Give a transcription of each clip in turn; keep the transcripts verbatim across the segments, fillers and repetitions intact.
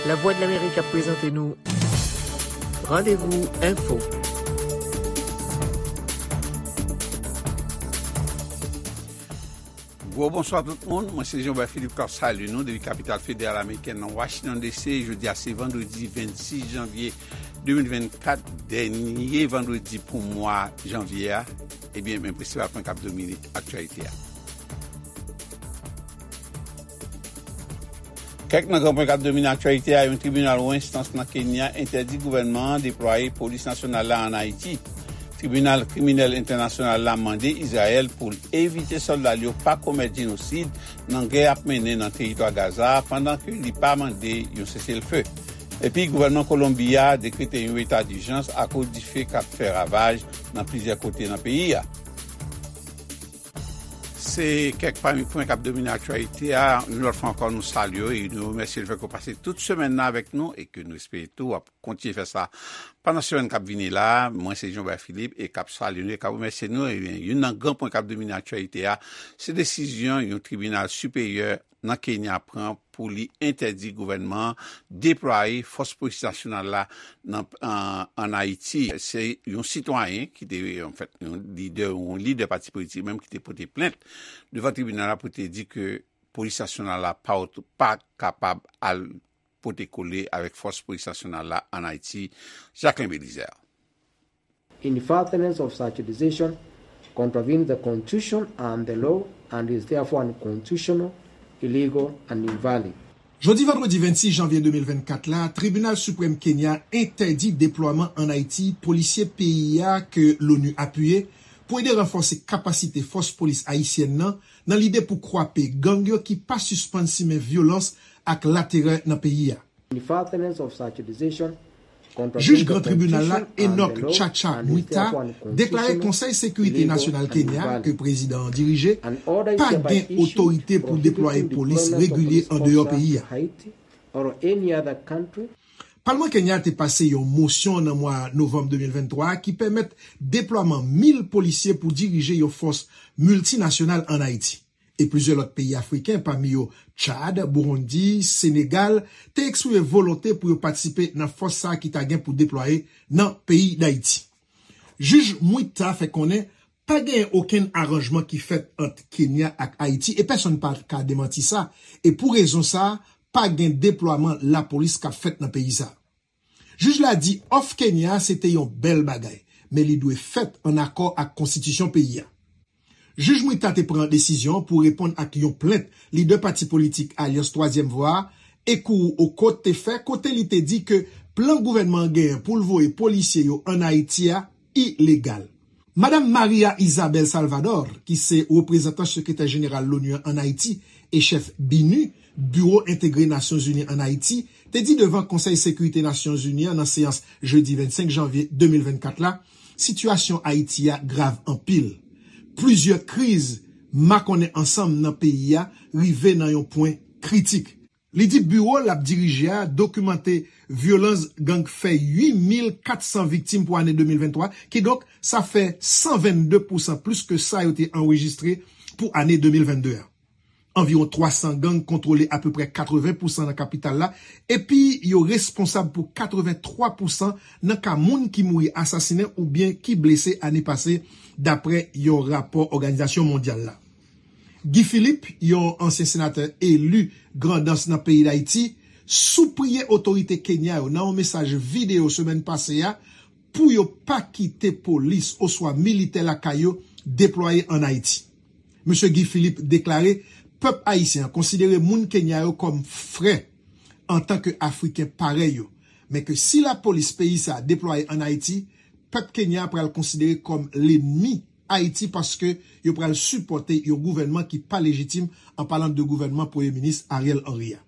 Lavwadlamerik ap prezante nou Randevou Enfo. Gwo bonswa tout moun, mwen se Jean Bert Philippe k ap salye nou depi kapital federal amerikèn nan Washington D C. Jodi a se vandredi vennsis janvye de mil vennkat, dènye vandredi pou mwa janvye a. Ebyen, men prensipal pwen k ap domine aktyalite a. Kèk nan gran pwen k ap domine aktyalite a: yon tribinal wo enstans nan Kenya entèdi gouvènman an deplwaye polis nasyonal la ann Ayiti. Tribinal Kriminèl Entènasyonal la mande Izrayèl pou l evite sòlda l yo pa komèt jenosid nan gè y ap mennen nan teritwa Gaza a, pandan ke li pa mande yon seselfe. Epi gouvènman Kolonbi a dekrete yon eta dijans akoz dife k ap fè ravaj nan plizyè kote nan peyi a. Se kèk pami pwen k ap domine aktyalite a. Yon lòt fwa ankò, nou salye w e nou remèsye lefètke w pase tout semèn nan avèk nou e ke nou espere tou w ap kontinye fè sa pandan semèn k ap vini la. Mwen se Jean Bert Philippe e k ap salye nou e k ap remèsye nou. Ebyen, youn nan gran pwen k ap domine aktyalite a, se desizyon yon tribinal siperyè nan Kenya pran pou li entèdi gouvènman an deplwaye fòs polis nasyonal la nan, an, ann Ayiti. Se yon sitwayen ki te, anfèt, yon lidè, yon lidè pati politik menm ki te pote plent devan tribinal la pou te di ke polis nasyonal la pa, pa kapab al pote kole avèk fòs polis nasyonal la ann Ayiti. Jacquelin Belizaire. In furtherance of such decision contravenes the constitution and the law and is therefore unconstitutional, illegal and invalid. Jodi vandredi vennsis janvye de mil vennkat la, Tribinal Siprèm Kenya entèdi deplwaman ann Ayiti polisye peyi a ke l'ONU apiye pou ede ranfòse kapasite fòs polis ayisyèn nan, nan lide pou kwape gang yo ki pa sispann simen vyolans ak laterè nan peyi a. Jij Gran Tribinal la, Enoch Chacha Mwita, deklare Konsèy Sekirite Nasyonal Kenya, ke prezidan an dirije, pa gen otorite pou deplwaye polis regilye andeyò peyi a. Palman Kenya te pase yon mosyon nan mwa novanm de mil venntwa a ki pèmèt deplwaman mil polisye pou dirije yon fòs miltinasyonal ann Ayiti. E plizyè lòt peyi afriken, pami yo Tchad, Burundi, Senegal, te eksprime volonte pou yo patisipe nan fòs sa a ki ta gen pou deplwaye nan peyi Dayiti. Jij Mwita fè konnen pa genyen okenn aranjman ki fèt ant Kenya ak Ayiti e pèsonn pa ka demanti sa. E pou rezon sa a, pa gen deplwaman lapolis k ap fèt nan peyi sa a. Jij la di òf Kenya a se te yon bèl bagay, men li dwe fèt ann akò ak konstitisyon peyi a. Jij Mwita te pran desizyon an pou reponn ak yon plent lidè pati politik Alyans Twazyèm Vwa a, Ekuru Aukot, te fè, kote li te di ke plan gouvènman an genyen pou l voye polisye yo ann Ayiti a ilegal. Madanm Maria Isabel Salvador, ki se reprezantan sekretè jeneral l'ONU an ann Ayiti e chèf BINUH, Biwo Entegre Nasyonzini ann Ayiti, te di devan Konsèy Sekirite Nasyonzini an nan seyans jedi vennsenk janvye de mil vennkat la, sitiyasyon Ayiti a grav anpil. Plizyè kriz makonnen ansanm nan peyi a rive nan yon pwen kritik. Li di biwo l ap dirije a dokimante vyolans gang fè uit mil kat san viktim pou ane de mil venntwa, kidonk sa fè san vennde pousan plis ke sa yo te anrejistre pou ane de mil vennde a. Anviwon twa san gang kontwole apeprè katreven pousan nan kapital la, epi yo responsab pou katreven twa pousan nan ka moun ki mouri asasinen oubyen ki blese ane pase, dapre yon rapò Òganizasyon Mondyal la. Guy Philippe, yon ansyen senatè eli Grandans nan peyi Dayiti, sipriye otorite Kenya yo nan yon mesaj videyo semèn pase a pou yo pa kite polis oswa militè lakay yo deplwaye ann Ayiti. Mesye Guy Philippe deklare pèp ayisyen an konsidere moun Kenya yo kòm frè antanke Afriken parèy yo, men ke si lapolis peyi sa a deplwaye ann Ayiti, pèp Kenya a pral konsidere kòm lènmi Ayiti paske yo pral sipòte yon gouvènman ki pa lejitim, an palan de gouvènman Premye Minis Ariel Henry a.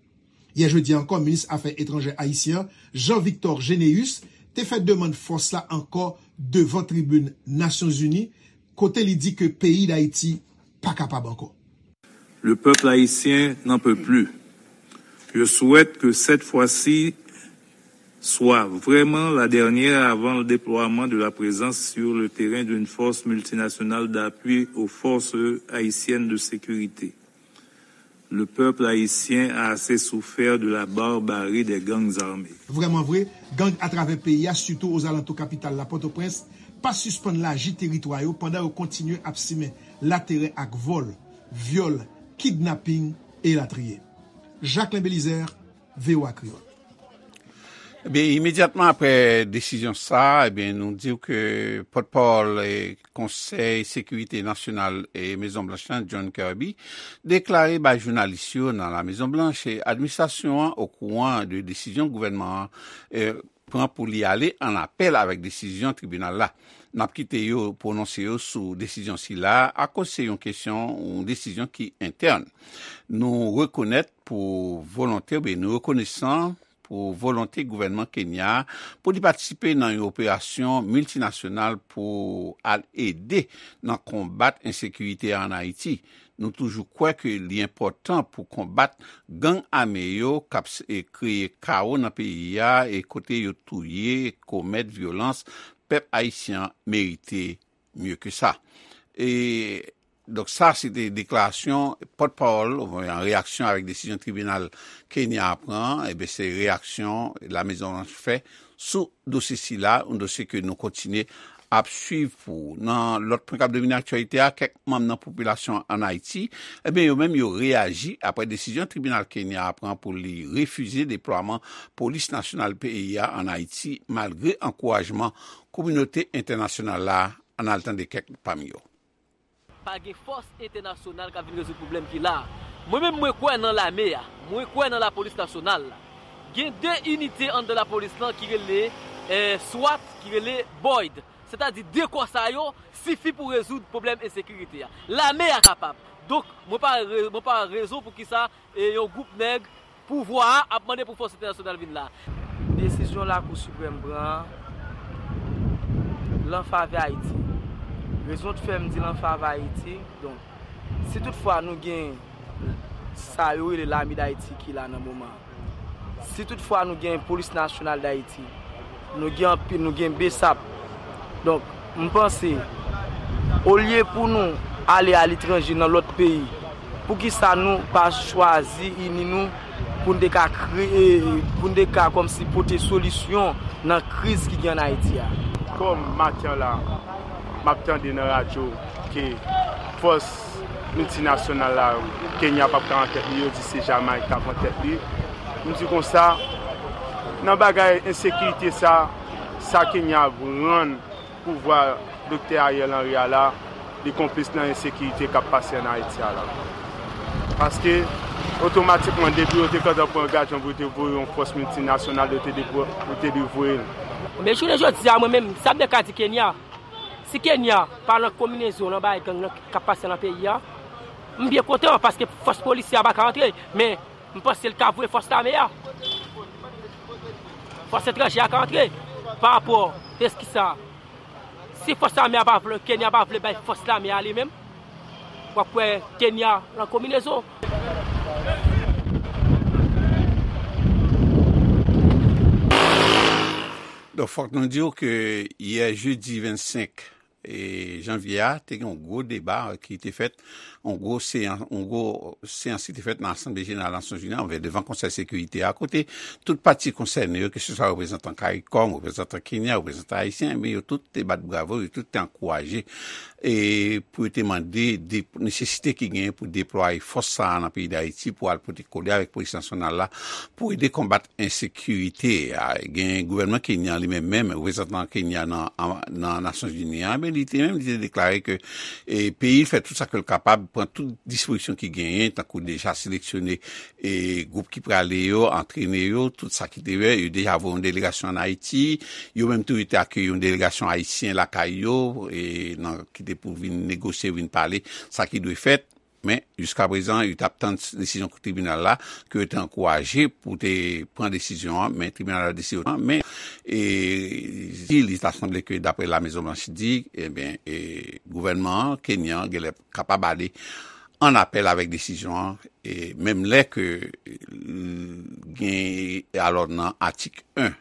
Yè jedi a ankò, minis afè etranjè ayisyen an, Jean Victor Généus, te fè demann fòs la ankò devan tribin Nasyonzini, kote li di ke peyi Dayiti pa kapab ankò. Le peuple haïtien n'en peut plus. Je souhaite que cette fois-ci soit vraiment la dernière avant le déploiement de la présence sur le terrain d'une force multinationale d'appui aux forces haïtiennes de sécurité. Le peuple haïtien a assez souffert de la barbarie des gangs armés. Vrèman vre, gang atravè peyi a, sitou ozalantou kapital la, Pòtoprens, pa sispann laji teritwa yo pandan yo kontinye ap simen laterè ak vòl, vyòl, kidnaping, elatriye. Jacquelin Belizaire, V O A Kreyòl. Ebyen, imedyatman apre desizyon sa a, ebyen, nou di w ke pòtpawòl, e, Konsèy Sekirite Nasyonal e Mezon Blanch lan, John Kirby, deklare bay jounalis yo nan La Mezon Blanch, e, administrasyon an okouran de desizyon gouvènman an, e, pran pou li ale an apèl avèk desizyon tribinal la. N ap kite yo pwononse yo sou desizyon sila a, akoz se yon kesyon, yon desizyon ki entèn. Nou rekonèt pou volonte, oubyen nou rekonesan pou volonte gouvènman Kenya a pou li patisipe nan yon operasyon miltinasyonal pou al ede nan konbat ensekirite a ann Ayiti. Nou toujou kwè ke li enpòtan pou konbat gang ame yo k ap s-, e kreye kawo nan peyi a, e kote yo touye, komèt vyolans, pèp ayisyen an merite mye ke sa. E, donk, sa se te deklarasyon pòtpawòl, an reyaksyon avèk desizyon tribinal Kenya a pran, ebyen, se reyaksyon La Mezon Blanch fè sou dosye sila, yon dosye ke nou kontinye ap swiv pou ou. Nan lòt pwen k ap domine aktyalite a, kèk manm nan popilasyon an Ayiti, ebyen, yo menm yo reyaji apre desizyon tribinal Kenya a pran pou li refize deplwaman polis nasyonal peyi a an Ayiti, malgre ankourajman kominote entènasyonal la. Ann al tande kèk pami yo. Pa gen fòs entènasyonal k ap vin rezoud pwoblèm ki la a. Mwen menm, mwen kwè nan lame a. Mwen kwè nan lapolis nasyonal la. Gen de inite anndan lapolis lan ki rele, eh, swat, ki rele boyd. Sètadi de kò sa yo sifi pou rezoud pwoblèm ensekirite a. Lame a kapab. Donk, mwen pa re-, mwen pa wè rezon poukisa, eh, yon gwoup nèg pouvwa a ap mande pou fòs entènasyonal vin la. Desizyon Lakou Siprèm pran an, l an favè Ayiti. Rezon k fè m di l an favè Ayiti, donk, si toutfwa nou gen sa yo rele Lame Dayiti ki la nan moman an, si toutfwa nou gen Polis Nasyonal Dayiti, nou gen anpil, nou gen besap. Donk, m panse, olye pou nou ale aletranje nan lòt peyi, poukisa nou pa chwazi ini nou pou n te ka kreye, pou n te ka kòmsi pote solisyon nan kriz ki gen ann Ayiti a? Kòm maten an la, m ap tande nan radyo ke fòs miltinasyonal la, Kenya p ap ka an tèt li, yo di se Jamayik k ap an tèt li. M di konsa, nan bagay ensekirite sa, sa Kenya ap rann pouvwa Doktè Ariel Henry a la, li konplis nan ensekirite k ap pase ann Ayiti a la. Paske, otomatikman, depi yo te gentan pran angajan pou yo te voye yon fòs miltinasyonal, yo te depò-, yo te dwe voye l. Men jounen jodi a, mwen menm, sa m te ka di Kenya, si Kenya pa nan konbinezon nan bagay gang nan k ap pase nan peyi a, m byen kontan, paske fòs polisye a pa ka antre, men m panse l ka voye fòs lame a. Fòs etranje a ka antre pa rapò de kisa. Si fòs lame a pa vle, Kenya pa vle bay fòs lame a li menm, w ap wè Kenya nan konbinezon. Donk, fòk nou di w ke yè jedi vennsenk e, janvye a, te gen yon gwo deba ki te fèt, yon gwo seyans, yon gwo seyans ki te fèt nan Asanble Jeneral Nasyonzini an, devan Konsèy Sekirite a, kote tout pati konsène yo, keseswa reprezantan CARICOM, reprezantan Kenya, reprezantan ayisyen, men yo tout te bat bravo, yo tout te ankouraje, e, pou yo te mande de, nesesite ki genyen pou deplwaye fòs sa a nan peyi Dayiti pou al pote kole avèk polis nasyonal la pou ede konbat ensekirite a. Gen gouvènman Kenya li menm, menm reprezantan Kenya nan, nan Nasyonzini an, men li te menm, li te deklare ke, e, peyi l fè tout sa ke l kapab, pran tout dispozisyon ki genyen, tankou deja seleksyone, e, gwoup ki prale yo, antrene yo, tout sa ki te fè, yo deja voye yon delegasyon ann Ayiti, yo menm tou yo te akeyi yon delegasyon ayisyen lakay yo, e, nan, ki te pou vin negosye, vin pale, sa ki dwe fèt. Men, jiskaprezan, yo t ap tann desizyon tribinal la, ke yo te ankouraje pou te pran desizyon an, men tribinal la deside otrèman. Men, e, si li ta sanble ke, daprè La Mezon Blanch di, ebyen, e, gouvènman an, Kenya an, genlè kapab ale an apèl avèk desizyon an, e menm lè ke, e, gen, alò, nan atik en,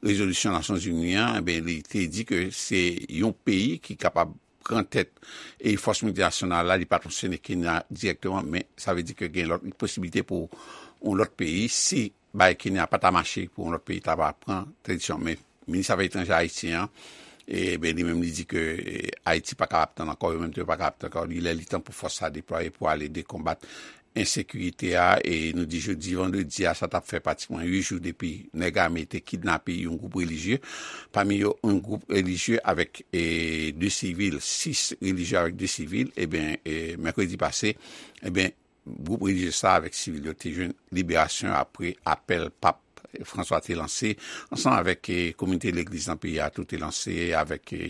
rezolisyon Nasyonzini an, ebyen, li te di ke se yon peyi ki kapab pran tèt e fòs miltinasyonal la, li pa t fonksyone Kenya dirèkteman, men sa vle di ke gen lòt posiblite pou yon lòt peyi, si bay Kenya pa ta mache, pou yon lòt peyi ta va pran tranzisyon. Men minis afè etranjè ayisyen an, e ben, li menm li di ke e, Ayiti pa kapab tann ankò, yo menm tou yo pa kapab tann ankò. Li lè li tan pou fòs sa deplwaye pou ale dekonbat ensekirite a, e nou di jodi vandredi a, sa t ap fè pratikman uit jou depi nèg ame te kidnape yon gwoup relijye, pami yo yon gwoup relijye avèk e, de sivil, sis relijye avèk de sivil, ebyen, e, mèkredi pase, ebyen, gwoup relijye sa avèk sivil yo te jwenn liberasyon apre apèl pap François te lanse, ansanm avèk e, kominote legliz nan peyi a tou te lanse, avèk e,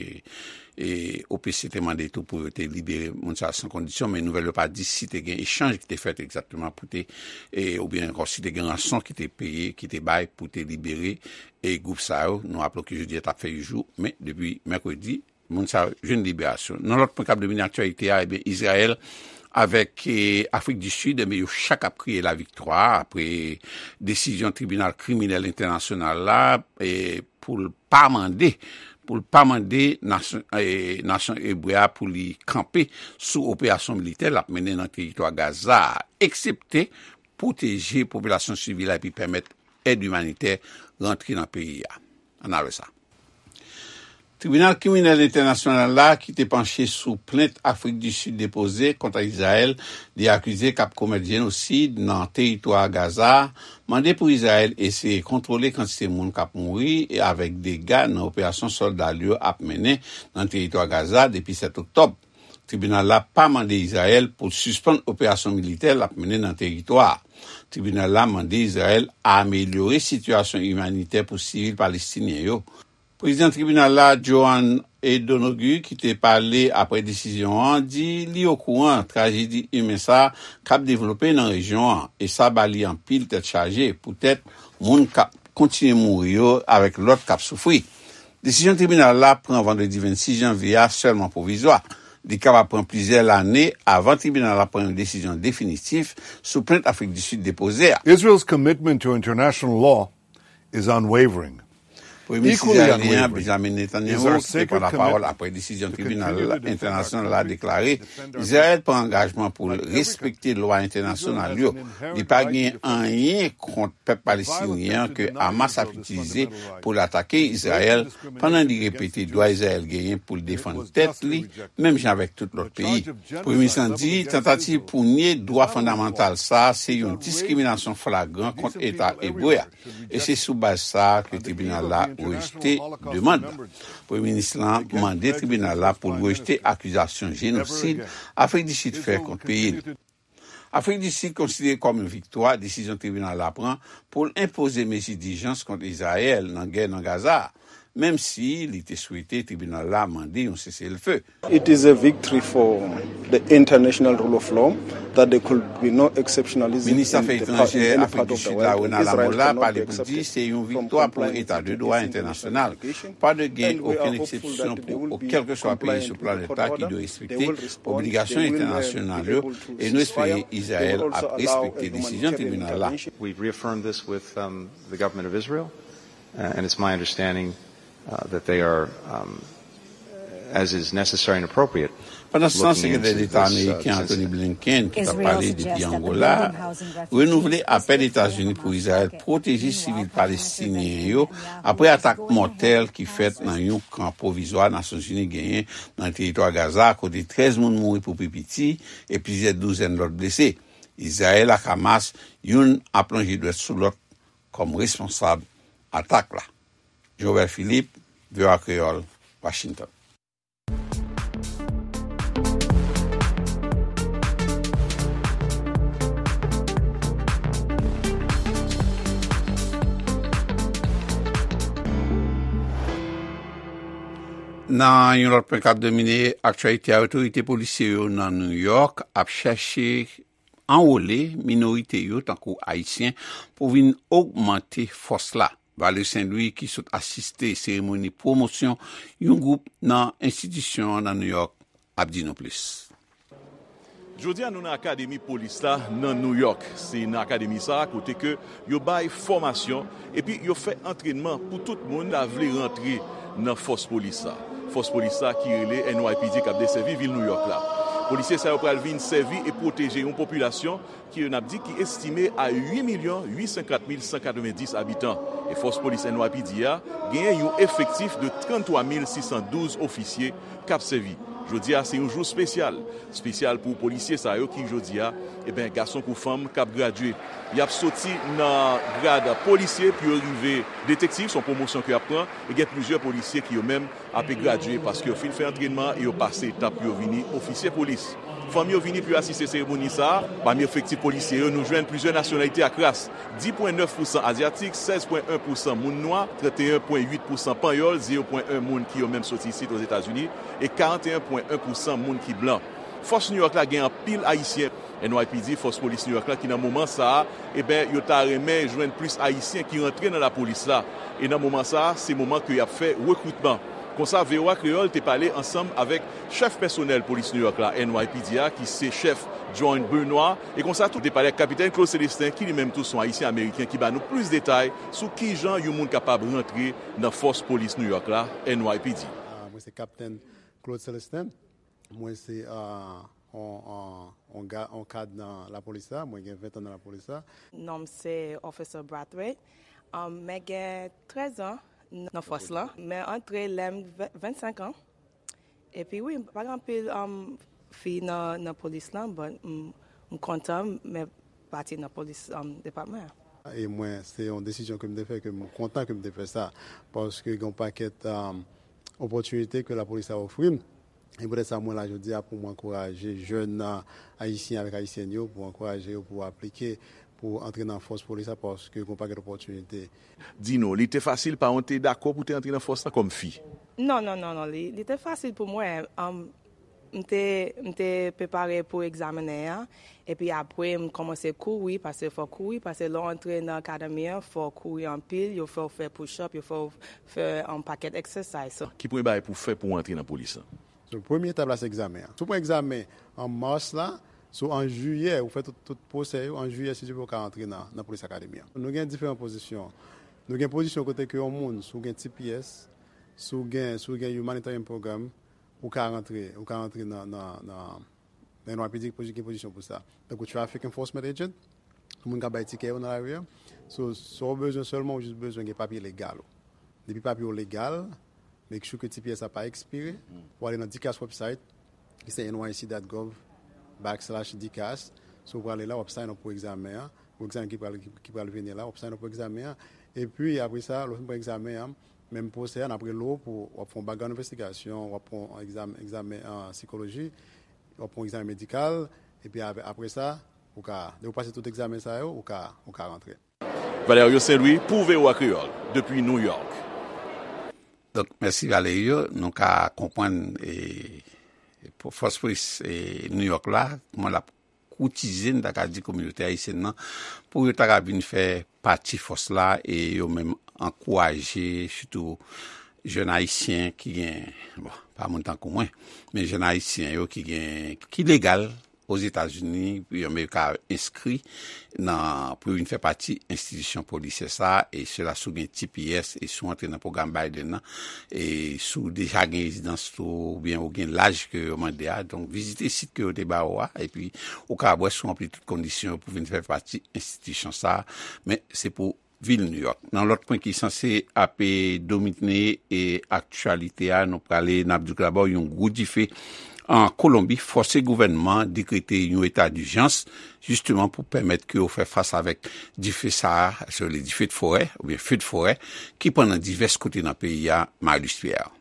e, O P C te mande tou pou yo te libere moun sa a san kondisyon, men nouvèl yo pa di si te gen echanj ki te fèt egzakteman pou te, e, oubyen ankò si te gen ranson ki te peye, ki te bay pou te libere e gwoup sa yo. Nou raple ke jodi a t ap fè uit jou, men depi mèkredi, moun sa yo jwenn liberasyon. Nan lòt pwen k ap domine aktyalite a, ebyen, Izrayèl avèk e, Afrik di Sid, ebyen, yo chak ap kriye laviktwa apre desizyon Tribinal Kriminèl Entènasyonal la e, pou l pa mande, pou l pa mande nasyon, e, nasyon ebre a pou li kanpe sou operasyon militè l ap mennen nan teritwa Gaza a, eksepte pwoteje popilasyon sivil la epi pèmèt èd imanitè rantre nan peyi a. Ann al wè sa. Tribinal Kriminèl Entènasyonal la, ki te panche sou plent Afrik di Sid depoze kont Izrayèl, li akize k ap komèt jenosid nan teritwa Gaza a, mande pou Izrayèl eseye kontwole kantite moun k ap mouri e avèk dega nan operasyon sòlda l yo ap mennen nan teritwa Gaza depi sèt oktòb. Tribinal la pa mande Izrayèl pou l sispann operasyon militè l ap mennen nan teritwa a. Tribinal la mande Izrayèl amelyore sitiyasyon imanitè pou sivil palestinyen yo. Prezidan tribinal la, Johan Donoghue, ki te pale apre desizyon an, di li okouran trajedi imen sa a k ap devlope nan rejyon an, e sa ba li anpil tèt chaje poutèt moun k ap kontinye mouri yo avèk lòt k ap soufri. Desizyon tribinal la pran vandredi vennsis janvye a sèlman pwovizwa. Li kapab pran plizyè lane avan tribinal la pran yon desizyon definitif sou plent Afrik di Sid depoze a. Israel's commitment to international law is unwavering. Premye minis izrayelyen an, Benjamin Netanyahu, ki te pran lapawòl apre desizyon tribinal entènasyonal la deklare Izrayèl pran angajman pou l respekte lwa entènasyonal yo. Li pa gen anyen kont pèp palestinyen an ke Hamas ap itilize pou l atake Izrayèl, pandan li repete dwa Izrayèl genyen pou l defann tèt li, menm jan avèk tout lòt peyi. Premye minis lan di tantativ pou nye dwa fondamantal sa a se yon diskriminasyon flagran kont Eta ebre a. E se sou baz sa a ke tribinal la rejte demann nan. Premye minis lan mande tribinal la pou l rejte akizasyon jenosid Afrik di Sid fè kont peyi l. Afrik di Sid konsidere kòm yon viktwa desizyon tribinal la pran pou l enpoze mezi dijans kont Izrayèl nan gè nan Gaza a, menm si li te swete tribinal la mande yon seselfe. It is a victory for the international rule of law that there could be no exceptionalism. Minis afè etranjè Afrik di Sid la, Ronald Lamola, pale pou di se yon viktwa pou eta de dwa entènasyonal. Pa dwe gen okenn eksepsyon pou kèlkeswa peyi sou planèt la ki dwe respekte obligasyon entènasyonal yo, e nou espere Izrayèl ap respekte desizyon tribinal la. We've reaffirmed this with, um, the government of Israel, uh, and it's my understanding, uh, that they are, um, as is necessary and appropriate. Pandan se tan, Sekretè Deta ameriken Antony Blinken, ki t ap pale depi Angola, renouvle apèl Etazini pou Izrayèl pwoteje sivil palestinyen yo apre atak mòtèl ki fèt nan yon kan pwovizwa Nasyonzini genyen nan teritwa Gaza, kote trèz moun mouri pou pi piti e plizyè douzèn lòt blese. Izrayèl ak Hamas, youn ap lonje dwèt sou lòt kòm responsab atak la. Joël Philippe, V O A Kreyòl, Washington. Nan yon lòt pwen k ap domine aktyalite a, otorite polisyè yo nan New York ap chèche anwole minorite yo, tankou Ayisyen, pou vin ogmante fòs la. Valery Saint Louis, ki sot asiste seremoni pwomosyon yon gwoup nan enstitisyon an nan New York, ap di nou plis. Jodi a, nou nan Akademi Polis la nan New York. Se nan akademi sa a kote ke yo bay fòmasyon epi yo fè antrènman pou tout moun ta vle rantre nan fòs polis la. Fòs polis sa ki rele N Y P D k ap desèvi vil Nouyòk la. Polisye sa yo pral vin sèvi e pwoteje yon popilasyon ki yo n ap di ki estime a uit milyon uit san kat mil san katrevenndis abitan. E fòs polis N Y P D a genyen yon efektif de tranntwa mil sis san douz ofisye k ap sèvi. Jodi a se yon jou espesyal. Espesyal pou polisye sa yo ki jodi a, eben, gason kou fanm k ap gradye. Y ap soti nan grad polisye pou yo rive detektiv, se yon pwomosyon ke y ap pran, e gen plizyè polisye ki yo menm ape gradye paske yo fin fè antrènman e yo pase etap pou yo vini ofisye polis. Fanm yo vini pou yo asiste seremoni sa a. Pami efektif polisye yo, nou jwenn plizyè nasyonalite ak ras, dis pwen nèf pousan azyatik, sèz pwen en pousan moun nwa, trannteyen pwen uit pousan panyòl, zewo pwen en moun ki yo menm soti isit Ozetazini, e karanteyen pwen en pousan moun ki blan. Fòs Nouyòk la gen anpil Ayisyen. N Y P D, fòs polis Nouyòk la, ki nan moman sa a, eben, yo ta renmen jwenn plis Ayisyen ki rantre nan lapolis la. E nan moman sa a, se moman ke y ap fè rekritman. Konsa, V O A Kreyòl te pale ansanm avèk chèf pèsonèl polis Nouyòk la, N Y P D a, ki se chèf John Benoit. E konsa tou, te pale ak Kapitèn Claude Célestin, ki li menm tou se yon Ayisyen Ameriken, ki ba nou plis detay sou kijan yon moun kapab rantre nan fòs polis Nouyòk la, N Y P D. Ah, mwen se Kapitèn Claude Célestin. Mwen se, ah, on, on, on ga-, on kad nan lapolis la. Mwen gen ven tan nan lapolis la. Non m se Officer Brathwaite. Um, mwen gen trèz an nan fòs lan. Mwen antre lè m venn, vennsenk an. Epi wi, pa gen anpil, um, fi nan, nan polis lan, but m, m kontan mwen pati nan polis, um, depatman an. E mwen, se yon desizyon ke m te fè, ke m kontan ke m te fè sa. Paske gen yon pakèt, um, opòtinite ke lapolis la ofri m. E poutèt sa, mwen la jodi a pou mwen ankouraje jèn, a, ayisyen avèk ayisyèn yo, pou ankouraje yo pou aplike, pou antre nan fòs polis la, paske gen yon pakèt opòtinite. Di nou, li te fasil, paran w te dakò pou te antre nan fòs la kòm fi? Non, non, non, non, li, li te fasil pou mwen. Um, m te, m te prepare pou egzamen an, epi apre m kòmanse kouri, paske fò kouri, paske lè w antre nan akademi an, fò w kouri anpil, yo fè w fè push up, yo fè w fè yon pakèt exercise. So, ki premye bagay pou w fè pou w antre nan polis lan? So, premye etap la se egzamen an. Si w pran egzamen an mas la, so an jiyè, ou fè tout, tout pwosè yo, an jiyè, si Dye vle, ou ka antre nan, nan polis akademi an. Nou gen diferan pozisyon. Nou gen pozisyon kote ke yon moun, si w gen T P S, si w gen, si w gen humanitarian program, ou ka rantre, ou ka rantre nan, nan, nan, nan N Y P D ki gen pozisyon pou sa. Tankou traffic enforcement agent, moun k ap bay tikè yo nan lari a. So, sa w bezwen sèlman, ou jis bezwen gen papye legal ou. Depi papye w legal, make sure ke T P S la pa ekspire, ou ale nan DCAS website, ki se N Y C dot gov backslash DCAS. So, ou prale la, w ap sign up pou egzamen an, pou egzamen ki pral, ki, ki pral vini la, w ap sign up pou egzamen an. Epi, apre sa, lè w fin pran egzamen an, menm pwosè a, n ap rele w pou w ap fè yon background investigation, w ap pran yon egzamen, egzamen, ah, sikoloji, w ap pran yon egzamen medikal, epi apre, apre sa, ou ka, lè w pase tout egzamen sa yo, ou ka, ou ka rantre. Valerio Saint-Louis pou V O A Kreyòl, depi New York. Donk, mèsi Valerio. Nou ka konprann, e, pou fòs polis, e, New York la, kòman l ap koutize, n ta ka di, kominote ayisyèn nan, pou yo ta ka vin fè pati fòs la, e yo menm ankouraje, sitou jèn ayisyen ki gen, bon, pa moun tankou mwen, men jèn ayisyen yo ki gen, ki legal Ozetazini, pou yo menm ka enskri nan, pou yo vin fè pati enstitisyon polisyè sa, e sila si w gen T P S, e si w antre nan pwogram Biden nan, e si w deja gen rezidans tou, oubyen ou gen laj ke yo mande a, donk vizite sit ke yo te ba ou a, epi ou ka wè si w ranpli tout kondisyon yo pou vin fè pati enstitisyon sa, men se pou vil New York. Nan lòt pwen ki sanse ape domine e aktyalite a, nou prale, n ap di w dabò yon gwo dife an Kolonbi fòse gouvènman an dekrete yon eta dijans, jisteman pou pèmèt ke yo fè fas avèk dife sa a, se rele dife de forè, oubyen fe de forè, ki pran nan divès kote nan peyi a, Marius Pierre.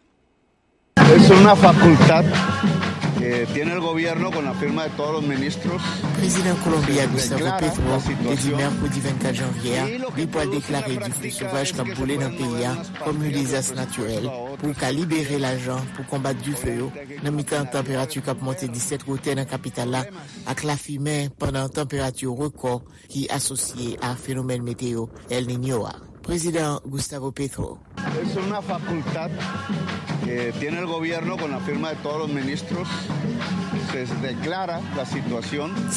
Es una facultad que tiene el gobierno con la firma de todos los ministros. Prezidan Kolonbi a, Gustavo Petro, te di mèkredi vennkat janvye a, li pral deklare dife sovaj k ap boule nan peyi a kòm yon dezas natirèl pou ka libere lajan pou konbat dife yo nan mitan tanperati k ap monte disèt wotè nan kapital la ak lafimen pandan tanperati rekò ki asosye a fenomèn meteyo El Niño a. Prezidan Gustavo Petro. Es una facultad que tiene el gobierno con la firma de todos los ministros. Se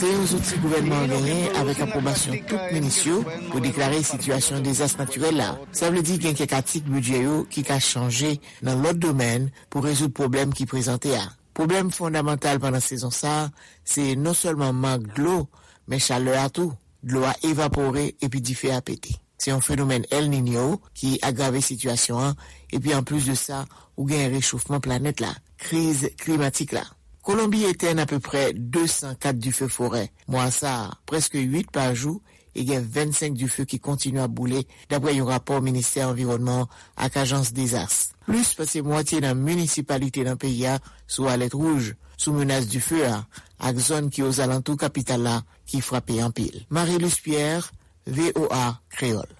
yon zouti gouvènman an genyen avèk apwobasyon tout minis yo pou deklare sitiyasyon dezas natirèl la. Sa vle di gen kèk atik bidjè yo ki ka chanje nan lòt domèn pou rezoud pwoblèm ki prezante a. Pwoblèm fondamantal pandan sezon sa a, se non sèlman mank dlo, men chalè a tou. Dlo a evapore epi dife a pete. Se yon fenomèn El Niño ki agrave sitiyasyon an, epi anplis de sa, ou gen rechofman planèt la, kriz klimatik la. Kolonbi etèn apeprè de san kat dife forè mwa sa a, prèske uit pa jou, e gen vennsenk dife ki kontinye ap boule, dapre yon rapò Ministè Anviwònman an ak Ajans Dezas. Plis pase mwatye nan minisipalite nan peyi a sou alèt wouj, sou menas dife a, ak zòn ki ozalantou kapital la ki frape anpil. Marie-Luce Pierre, V O A Kreyòl.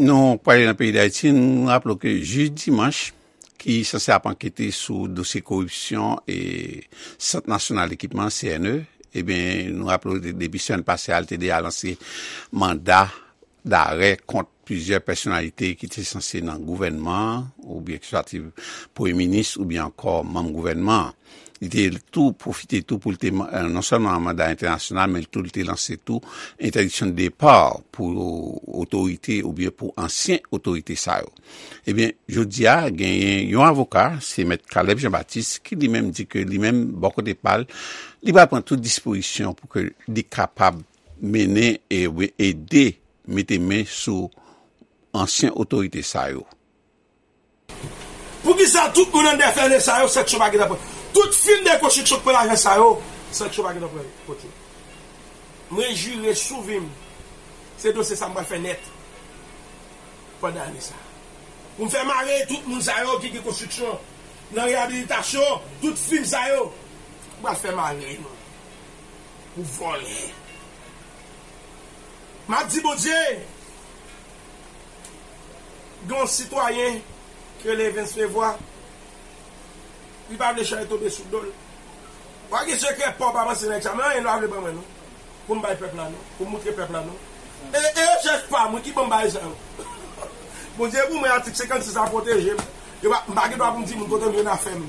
Nou prale nan peyi Dayiti, nou raple w ke jij dimanch ki sanse ap ankete sou dosye koripsyon e Sant Nasyonal Ekipman, C N E, ebyen, nou raple w de-, depi semèn pase a, li te deja lanse manda darè kont plizyè pèsonalite ki te sanse nan gouvènman an, oubyen ki swa te premye minis, oubyen ankò manm gouvènman an. Li te tou pwofite tou pou l te, eh, non sèlman an manda entènasyonal, men tou li te lanse tou entèdiksyon de depa pou otorite oubyen pou ansyen otorite sa yo. Ebyen, jodi a, genyen yon avoka, se Mèt Caleb Jean Baptiste, ki li menm di ke li menm, bò kote pa l, li pral pran tout dispozisyon pou ke li kapab mennen e ede mete men sou ansyen otorite sa yo. Poukisa tout moun anndan F N E sa yo, sanksyon pa gentan pran? Tout fim de konstriksyon k pran lajan sa yo, sanksyon pa gentan pran kont yo. Mwen jire sou vi m, se dosye sa m pral fè nèt pandan ane sa. Pou m fè mare tout moun sa yo ki gen konstriksyon nan reyabilitasyon, tout fim sa yo, m pral fè mare nou pou vòlè. M ap di Bondye, gen yon sitwayen ki rele Evens Levoix, li pa vle chay tonbe sou do l. W a gen sekrè pa w pa panse nan egzamen, anyen lwa vle ban mwen non. Pou m bay pèp la non, pou m moutre pèp la non. E, e rechèch pa mwen ki ban m bagay sa yo. Bondye pou mwen, atik senkannsis la pwoteje m. Yo pa, m pa gen dwa pou m di moun kote m jwenn afè m.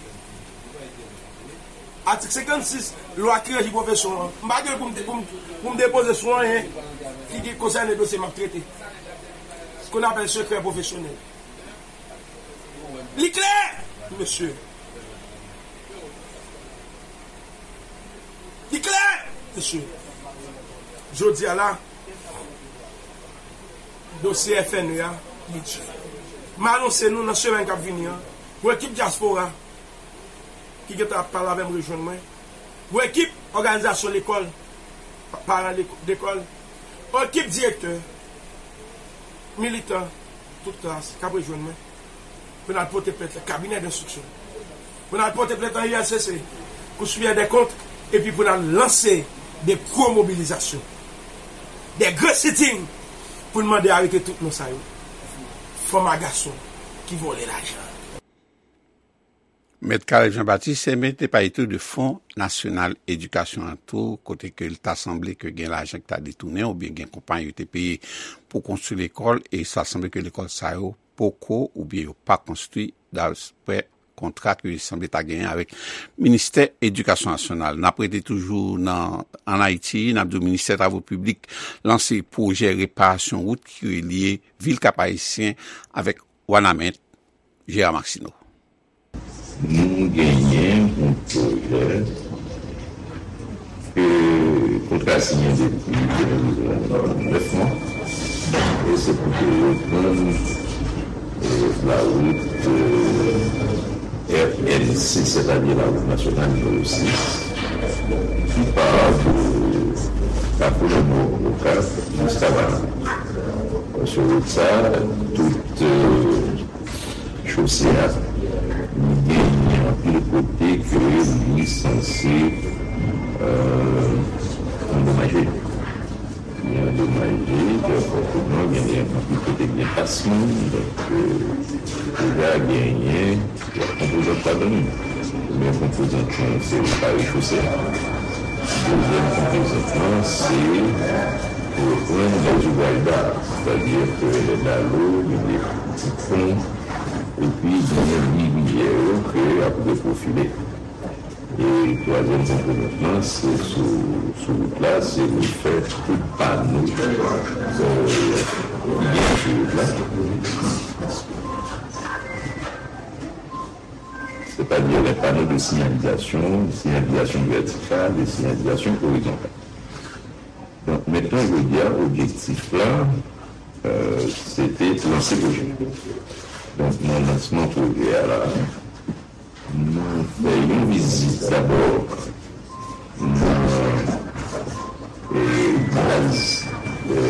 Atik senkannsis, lwa ki reji pwofesyon an. M pa gen pou m, pou m, pou m depoze sou anyen ki, ki konsène dosye m ap trete. Ce qu'on appelle secret professionnel. Li klè, mesye. Li klè, mesye. Jodi a la, dosye F N E a, li di. M anonse nou nan semèn k ap vini an, pou ekip dyaspora ki gentan ap pale avè m rejwenn mwen, pou ekip òganizasyon lekòl, pa-, paran leko-, lekòl, ekip direktè, militan, tout klas k ap rejwenn mwen, pou n al pote plent nan kabinè denstriksyon, pou n al pote plent nan U L C C, Kou Siperyè dè Kont, epi pou n al lanse de gwo mobilizasyon, de gwo sitting, pou n mande arete tout moun sa yo, fanm a gason ki vòlè lajan. Mèt Caleb Jean Baptiste, ebyen, te pale tou de Fon Nasyonal Edikasyon an tou, kote ke l ta sanble ke gen lajan ki ta detounen oubyen gen konpayi yo te peye pou konstwi lekòl, e sa sanble ke lekòl sa yo poko oubyen yo pa konstwi, daprè kontra ke sanble ta genyen avèk Ministè Edikasyon Nasyonal. N ap rete toujou nan, ann Ayiti, n ap di w Ministè Travo Piblik lanse pwojè reparasyon wout ki relye vil Kap Ayisyen avèk Wanament. Gérard Maxineau. Nou genyen yon pwojè ke kontra siyen depi de mil nèf mwa. E se pou te reprann, e, lawout, e, R N sis, sètadi lawout nasyonal nimewo sis, ki pa de Kafou Lanmò Okap jiska Banan. Sou wout sa, tout, e, chose a, li genyen anpil kote ke li sanse, e, andomaje. Li andomaje, fòseman, genyen anpil kote gen pas moun, donk, e, deja genyen konpozant ladan li. Premye konpozant lan, se repare chose a. Dezyèm konpozant lan, se reprann lèzouvraj da, sètadi ke lè dalo, gen de ti pon, epi gen rivyè yo ke ap reprofile. E twazyèm konponant lan, se sou, sou wout la, se refè tout pano, euh, ki gen sou wout la. C'est-à-dire les panneaux de signalisation, signalisation verticale et signalisation horizontale. Donc maintenant, je veux dire, objectif là, euh, c'était lancer projet. Donc, mon lancement projet là, nou fè yon vizit dabò nan, e, baz, e,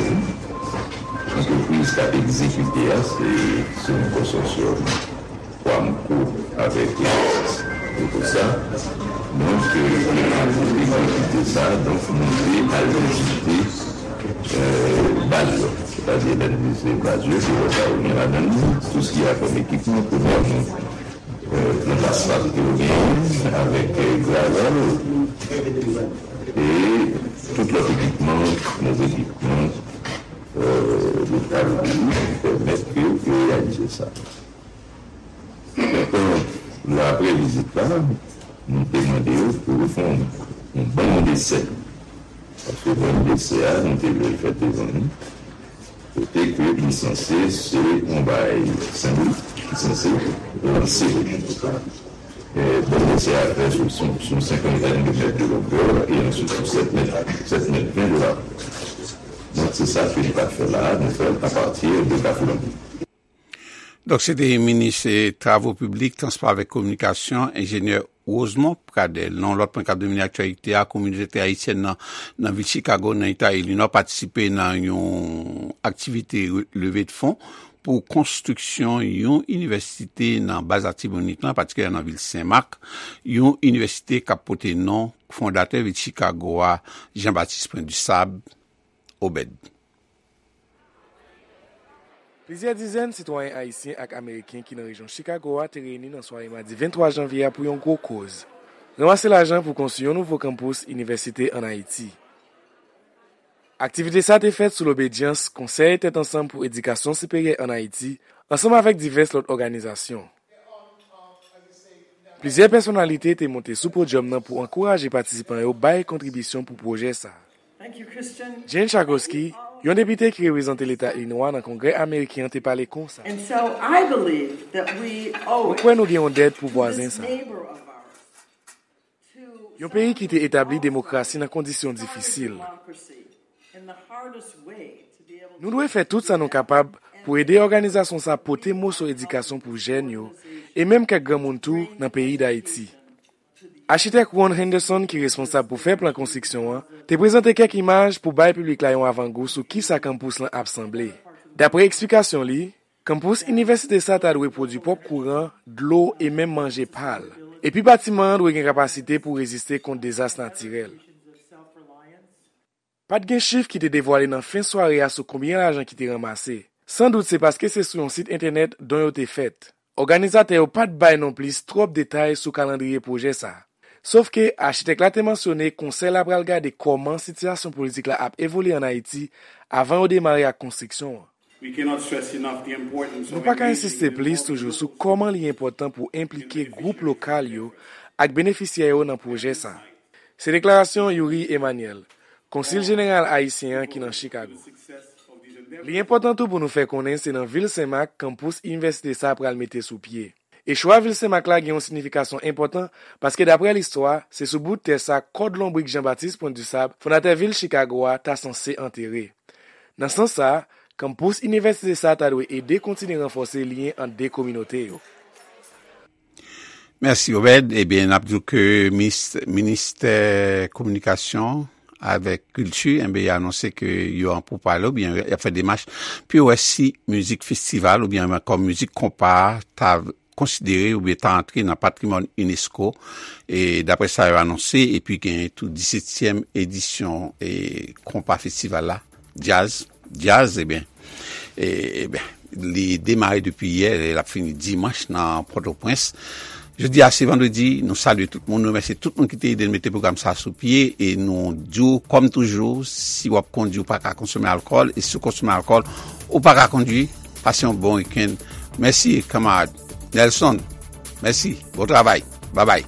antrepriz k ap egzekite a, se, se yon konsòsyòm Quamco avèk, e, Ecosa. Donk, e, pou egzekite sa, donk, nou te al vizite, e, baz yo. Sètadi, lè n vizite baz yo, se wè sa yo gen ladan l, tout sa ki a kòm ekipman, premyèman, euh, plant asfalt ke yo genyen avèk, euh, gravel e tout lòt ekipman, lòt ekipman, euh, lokal ki pèmèt ke yo reyalize sa. Donk, euh, apre vizit la, nou te mande yo pou yo fè yon, yon bann desè. Paske bann desè a, nou te vle l fèt devan nou. Kote ke li sanse se yon bagay senbolik, ki sanse lanse pwojè. E, bann desè a fè sou, sou, sou yon senkantèn de mèt de longè e answit sou sèt mèt, sèt mèt ven de larjè. Donk, se sa ke nou ka fè la a, nou fè l apati de Kafou Lanbi. Donk, se te minis, eh, Travo Piblik, Transpò avèk Kominikasyon, enjenyè Rosemond Pradel. Nan yon lòt pwen k ap domine aktyalite a, kominote ayisyèn nan, nan vil Chicago, nan eta Ilinò, patisipe nan yon aktivite re-, leve de fon pou konstriksyon yon inivèsite nan baz Latibonit lan, patikilyèman nan vil Senmak, yon inivèsite k ap pote non fondatè vil Chicago a, Jean Baptiste Point du Sable, Obed. Plizyè dizèn sitwayen ayisyen ak ameriken ki nan rejyon Chicago a te reyini nan sware madi venntwa janvye a pou yon gwo koz, ranmase lajan pou konstwi yon nouvo kanpous inivèsite ann Ayiti. Aktivite sa a te fèt sou lobedyans Konsèy Tèt Ansanm pou Edikasyon Siperyè ann Ayiti, ansanm avèk divès lòt òganizasyon. Plizyè pèsonalite te monte sou podyòm nan pou ankouraje patisipan yo bay kontribisyon pou pwojè sa a. Jen Schakowsky, yon depite ki reprezante leta Ilinwa nan Kongrè ameriken an, te pale konsa. And so I believe that we owe Mwen kwè nou gen yon dèt pou vwazen sa a. Yon peyi ki te etabli demokrasi nan kondisyon difisil. Nou dwe fè tout sa nou kapab pou ede òganizasyon sa a pote moso edikasyon pou jèn yo, e menm kèk granmoun tou nan peyi Dayiti. Achitèk Ron Henderson, ki responsab pou fè plan konstriksyon an, te prezante kèk imaj pou bay piblik la yon avangou sou kisa kanpous lan ap sanble. Dapre eksplikasyon li, kanpous inivèsite sa a ta dwe pwodui pwòp kouran, dlo e menm manje pa l. Epi batiman an dwe gen kapasite pou reziste kont dezas natirèl. Pa t gen chif ki te devwale nan fen sware a sou konbyen lajan ki te ranmase. Sandout se paske se sou yon sit entènèt don yo te fèt. Òganizatè yo pa t bay nonplis twòp detay sou kalandriye pwojè sa a. Sofke, achitèk la te mansyone Konsèy la pral gade kòman sitiyasyon politik la ap evolye ann Ayiti avan yo demare ak konstriksyon an. Nou pa ka ensiste plis toujou sou kòman li enpòtan pou enplike gwoup lokal yo ak benefisyè yo nan pwojè sa a. Se deklarasyon Youri Emmanuel, konsil jeneral ayisyen an ki nan Chicago. Li enpòtan tou pou nou fè konnen se nan vil Senmak kanpous inivèsite sa a pral mete sou pye. E chwa vil Senmak la gen yon siyifikasyon enpòtan, paske dapre listwa, se sou bout tè sa kòd lonbrik Jean Baptiste Point du Sable, fondatè vil Chicago a, ta sanse antere. Nan sans sa a, kanpous inivèsite sa a ta dwe ede kontinye ranfòse lyen ant de kominote yo. Mèsi, Obed. Ebyen, n ap di w ke minis-, ministè kominikasyon avèk kilti, enben, y anonse ke yo an poupale oubyen y ap fè demach pou yo wè si mizik festival oubyen ankò mizik konpa a ta konsidere oubyen ta antre nan patrimwàn unesco. E daprè sa yo anonse, epi gen tou disetyèm edisyon, e, konpa festival la, djaz, djaz, ebyen, e, ebyen, li demare depi yè, e l ap fini dimanch nan Pòtoprens. Jodi a se vandredi, nou salye tout moun, nou remèsye tout moun ki te ede n mete pwogram sa a sou pye, e nou di w, kòm toujou, si w ap kondui, ou pa ka konsome alkòl, e si w konsome alkòl, ou pa ka kondui. Pase yon bon wikenn. Mèsi, kanmarad Nelson. Mèsi. Bon travay. Babay.